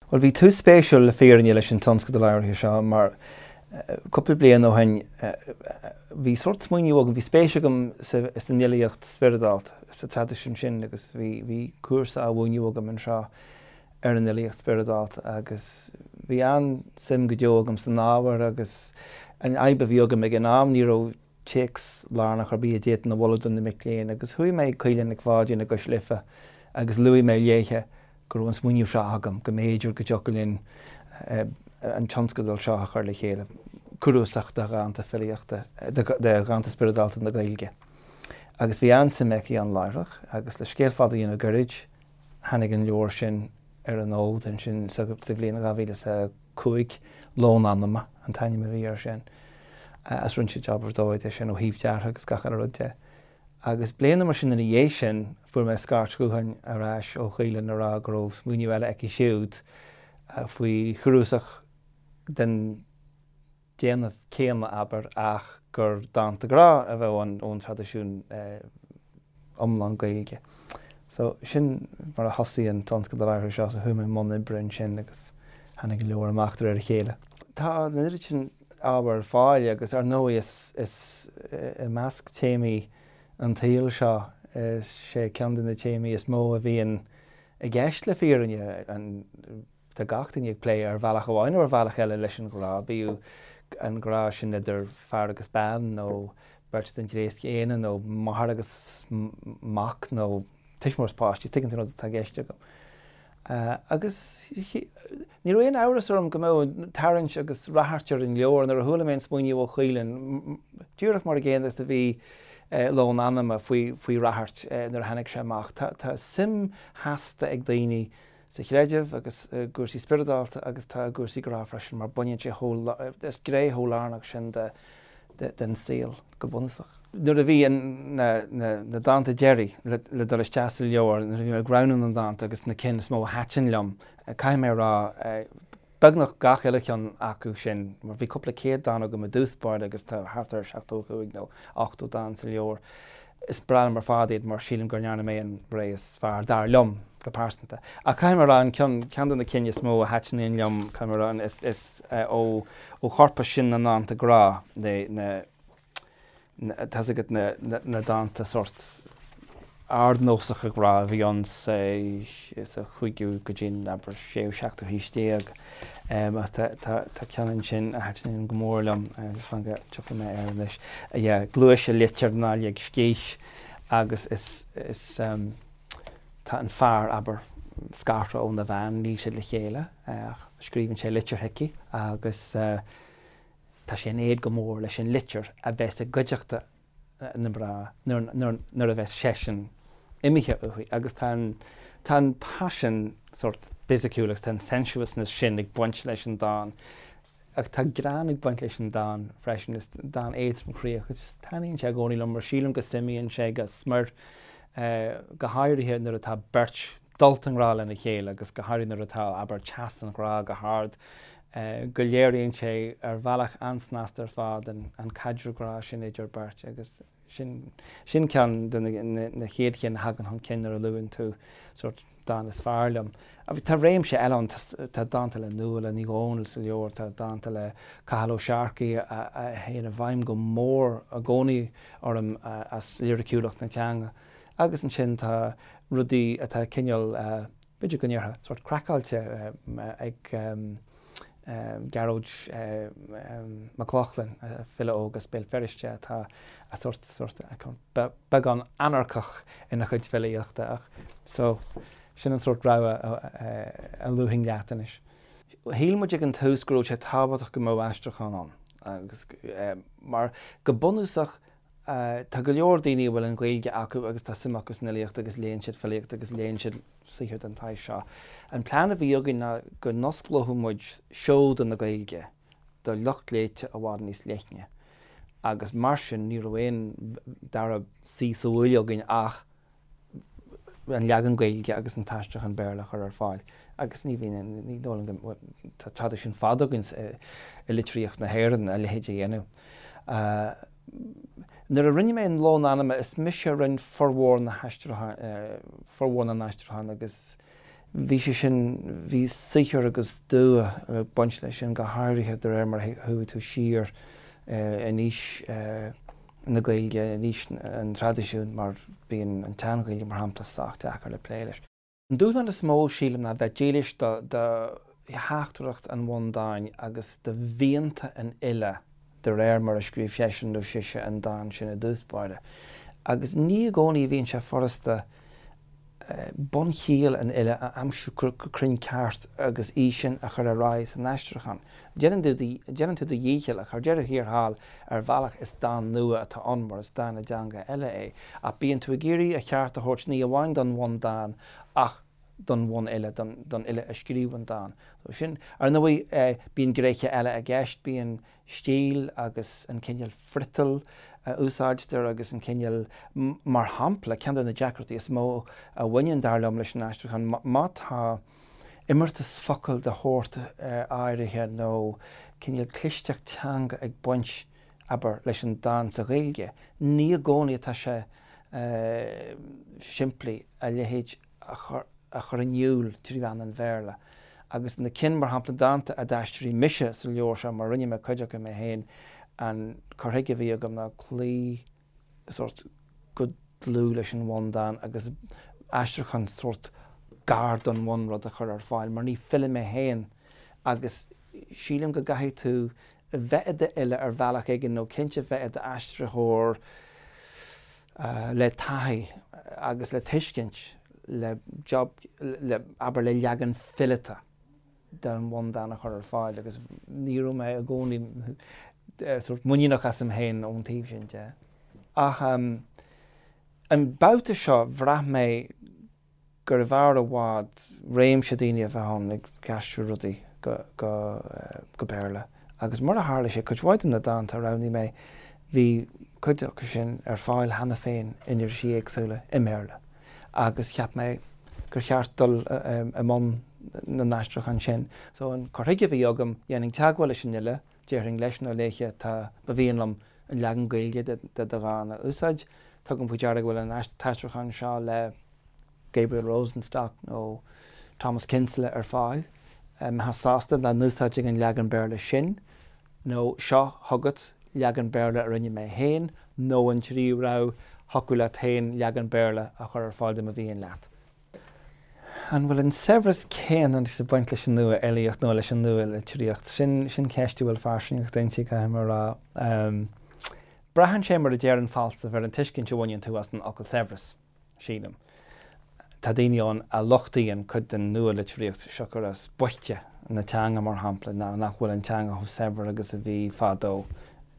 Bhuel, bhí tús spéisiúil le fírinne leis an tionscadal áirithe seo mar cúpla bliain ó shin bhí sórt smaoineamh agam, bhí spéis agam san fhilíocht spioradálta, sa traidisiún sin agus bhí bhí cúrsa á mhúineadh agam anseo ar an fhilíocht spioradálta agus bhí an-suim go deo agam san ábhar agus an fhadhb a bhí agam ag an am ní raibh téacs lárnach ar bith a d'fhéadfainn a mholadh do na mic léinn agus chuaigh mé ag Caoilfhionn Nic Pháidín i gCois Life agus luaigh mé léithe go raibh an smaoineamh seo agam, go mb'fhéidir go dtiocfadh linn an tionscadal seo a chur le chéile, cnuasach de dhánta filíochta, de dhánta spioradálta na Gaeilge. Agus bhí an-suim aici ann láithreach agus le scéal fada a dhéanamh gairid, tháinig an leabhar sin ar an fhód ansin sa bhliain 2005, Lón Anama an t-ainm a bhí air sin. Agus rinne sé jab ar dóigh de sin ó thaobh deartha agus gach uile rud de. Agus bliain nó mar sin ina dhiaidh sin, fuair mé scairt ghutháin ar ais ó Chaoilfhionn a rá go raibh smaoineamh eile aici siúd faoi chnuasach den déanamh céanna, abair, ach gur dánta grá a bheadh ann ón traidisiún iomlán Gaeilge. So, sin mar a thosaigh an tionscadal áirithe seo, so chuaigh mé i mbun oibre ansin agus tháinig an leabhar amach de réir a chéile. Tá an oiread sin ábhar ar fáil agus ar ndóigh is, is i measc téamaí an tsaoil seo, is é ceann de na téamaí is mó a bhíonn i gceist le fírinne, an, Tá gach duine ag plé ar bhealach amháin nó ar bhealach eile leis an ghrá, bíodh an grá sin idir fear agus bean nó beirt den ghnéas céanna nó máthair agus mac nó tuismitheoir is páiste, tuigeann tú an rud atá i gceist agam. Agus ní raibh aon amhras orm go mbeadh tarraingt agus ráchairt ar an leabhar nuair a chuala mé an smaoineamh ó Chaoilfhionn, díreach mar an gcéanna is a bhí Lón Anama faoi faoi ráchairt nuair a tháinig sé amach. Tá suim sheasta ag daoine sa chreideamh agus i gcúrsaí spioradálta agus tá i gcúrsaí grá freisin mar baineann sé chomh, is gné chomh lárnach sin de den saol go bunúsach. Nuair a bhí na na dánta deiridh le dul isteach sa leabhar, nuair a bhí mé ag roghnú na ndánta agus na cinn is mó a thaitin liom, caithfidh mé a rá, beagnach gach uile cheann acu sin, mar bhí cúpla céad dán agam i dtús báire agus tá thart ar 75 nó 80 dán sa leabhar. Is breá liom ar fad iad mar sílim go ndearna mé an rogha is fearr, dar liom, go pearsanta. Ach caithfidh mé a rá, an ceann, ceann de na cinn is mó a thaitníonn liom, caithfidh mé a rá, is, is ó, ó chorpas sin na ndánta grá, na, na, tá's agat na, na, na dánta sórt ardnósacha grá a bhí ann sa, sa chúigiú go dtí an, abair, séú, seachtú haois déag. Ach tá, tá, tá ceann ansin a thaitníonn go mór liom, just fan go dtiocfaidh mé air anois. Yeah, Gluais a litir ná lig scíth agus is, is, tá an fear, abair, scartha óna bhean, níl siad le chéile ach scríobhann sé litir chuici agus tá sé in éad go mór leis an litir a bheas i gcuideachta na mná nuair a bheas seisean imithe uaithi agus tá an tá an paisean sórt fisiciúil agus tá an sensuousness sin ag baint leis an dán ach tá greann ag baint leis an dán freisin, is dán éadromchroíoch agus taitníonn sé i gcónaí liom mar sílim go suimíonn sé go smior go háirithe nuair atá beirt dulta i ngrá lena chéile agus go háirithe nuair atá, abair, teas an ghrá go hard, go léiríonn sé ar bhealach an-snasta ar fad an caidreamh grá sin idir beirt agus sin, sin ceann de na chéad chinn a thagann chun cinn nuair a luann tú sórt dán is fearr liom. Tá réimse eile ann, tá dánta le Nuala Ní Dhomhnaill sa leabhar, tá dánta le Cathal Ó Searcaigh a théann i bhfeidhm go mór i gcónaí orm as liriciúlacht na teanga. Agus ansin tá rudaí atá cineál, b'fhéidir go ndéarfá, sórt craiceáilte ag Gearóid Mac Lochlainn, file óg as Béal Feirste atá sórt, sórt, beagán anarcach ina chuid filíochta ach so sin an sórt rogha a luafainn leat anois. Shíl muid ag an tús go raibh sé tábhachtach go mbeadh aistriúchán ann agus mar go bunúsach Tá go leor daoine a bhfuil an Ghaeilge acu agus tá suim acu san fhilíocht agus léann siad filíocht agus léann siad saothar den tsaghas seo. An plean a bhí againn ná go n-osclódh muid seoda na Gaeilge do lucht léite i bhfad níos leithne agus mar sin ní raibh aon dara suí sa bhuaile againn ach an leagan Gaeilge agus an t-aistriúchán Béarla a chur ar fáil agus ní bhíonn, ní dóigh liom go, tá traidisiún fada againn i litríocht na hÉireann a leithéid a dhéanamh. Nuair a rinne mé an Lón Anama, is mise a rinne formhór na haistriúchán, formhór na n-aistriúchán agus. Bhí sé sin, bhí saothar agus dua ag baint leis sin, go háirithe de réir mar a chuaigh tú siar in aois na Gaeilge, in aois an traidisiúin, mar bíonn an tSean-Ghaeilge, mar shampla, sách deacair le plé leis. An dúshlán is mó, sílim, ná bheith dílis do theachtaireacht an bhundáin agus do mhianta an fhile de réir mar a scríobh seisean nó sise an dán sin i dtús báire. Agus ní i gcónaí a bhíonn sé furasta bunchiall an fhile a aimsiú go cruinn ceart agus í sin a chur ar aghaidh san aistriúchán. Déanann tú do dhícheall ach ar deireadh thiar thall ar bhealach is dán nua atá ann mar is dán i dteanga eile é. Ach bíonn tú ag iarraidh a cheart a thabhairt ní amháin don bhundán ach don bhunfhile, don fhile a scríobh an dán. So sin, ar ndóigh, bíonn gnéithe eile i gceist, bíonn stíl agus an cineál friotail a úsáidtear agus an cineál, mar shampla, ceann de na deacrachtaí is mó a bhaineann, dar liom, leis an aistriúchán, má tá imeartas focal de shórt áirithe nó cineál clisteacht teanga ag baint, abair, leis an dán sa Ghaeilge, ní i gcónaí atá sé simplí a leithéid a chur in iúl trí mheán an Bhéarla. Agus na cinn, mar shampla, dánta a d'aistrigh mise sa leabhar seo, mar rinne mé cuid acu mé féin, an cur chuige a bhí agam ná cloí sórt go dlúth leis an bhundán agus aistriúchán sórt gar don bhunrud a chur ar fáil, mar ní file mé féin agus sílim go gcaithfidh tú bheith i d'fhile ar bhealach éigin nó cinnte bheith i d'aistritheoir le taithí agus le tuiscint le job, le, abair, le leagan fileata den bhundán a chur ar fáil agus ní raibh mé i gcónaí sórt muiníneach asam féin ón taobh sin de. Ach an babhta seo bhraith mé gurbh fhearr i bhfad réimse daoine a bheith ann ag aistriú rudaí go Béarla agus mar a tharla sé, cuid mhaith de na dánta a roghnaigh mé, bhí cuid acu sin ar fáil cheana féin in irisí éagsúla i mBéarla agus cheap mé gur cheart dul i mbun na n-aistriúchán sin. So an cur chuige a bhí agam, dhéanfainn teagmháil leis an fhile, déarfainn leis nó léithe tá, ba mhian liom an leagan Gaeilge de do dhán a úsáid, tugaim faoi deara go bhfuil an t-aistriúchán seo le Gabriel Rosenstock nó Thomas Kinsella ar fáil. Mbeifeá sásta dá n-úsáidfinn an leagan Béarla sin, nó seo chugat leagan Béarla a rinne mé féin, nó an tríú rogha, thiocfadh leat féin leagan Béarla a chur ar fáil dá mba mhian leat. An bhfuil an saibhreas céanna anois ag baint leis an nua-fhilíocht nó leis an nua-litríocht? Sin, sin ceist a bhfuil fairsingeacht inti, caithfidh mé a rá. Braitheann sé, mar a deir an Falstaff, ar an tuiscint a bhaineann tú as an fhocal saibhreas. sílim. Tá daoine ann a lochtaíonn cuid den nua-litríocht, siocair as boichte na teanga, mar shampla, nó nach bhfuil an teanga chomh saibhir agus a bhí fadó.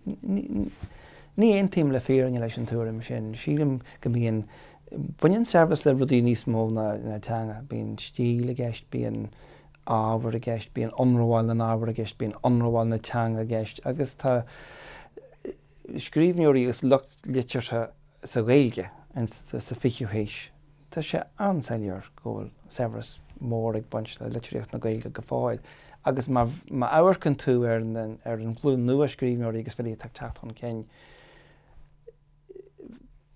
Ní aontaím le fírinne leis an tuairim sin. Sílim go mbíonn, baineann saibhreas le rudaí níos mó ná teanga. Bíonn stíl i gceist, bíonn ábhar i gceist, bíonn ionramháil na n-ábhar i gceist, bíonn ionramháil na teanga i gceist agus tá scríbhneoirí agus lucht liteartha sa Ghaeilge sa 20ú haois, tá sé an-soiléir go bhfuil saibhreas mór ag baint le litríocht na Gaeilge go fóill. Agus má amharcann tú ar an ghlúin nua scríbhneoirí agus filí atá ag teacht chun cinn,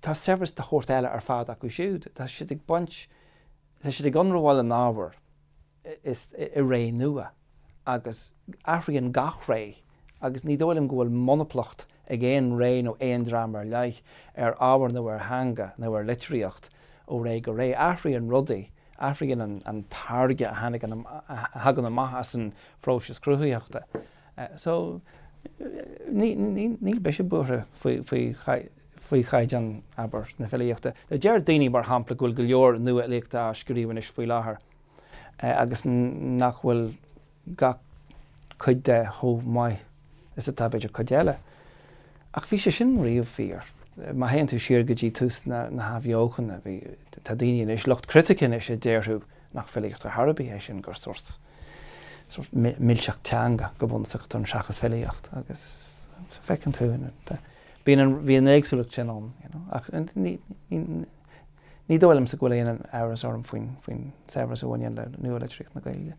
tá saibhreas de shórt eile ar fad acu siúd. Tá siad ag baint, tá siad ag ionramháil an ábhair. is i ré nua agus athraíonn gach ré agus ní dóigh liom go bhfuil monaplacht ag aon ré nó aon dream ar leith ar ábhar nó ar theanga nó ar litríocht ó ré go ré. Athraíonn rudaí, athraíonn an táirge a tháinig, a thagann amach as an phróiseas cruthaitheachta. So, níl mise buartha faoi faoi chaighdeán, abair, na filíochta. Deir daoine, mar shampla, go bhfuil go leor nua-fhilíochta á scríobh anois faoi láthair. agus nach bhfuil gach cuid de chomh maith is atá b'fhéidir cuid eile. Ach bhí sé sin riamh fíor. Má théann tú siar go dtí tús na hathbheochana, bhí, tá daoine anois, lucht critice anois a déarfadh nach filíocht ar chor ar bith é sin, gur sórt, sórt milseacht teanga go bunúsach atá ann seachas filíocht agus feiceann tú, bíonn an, bhí an éagsúlacht sin ann, you know, ach ní, ní, Ní dóigh liomsa go bhfuil aon amhras orm faoin saibhreas a bhaineann le nua-litríocht na Gaeilge.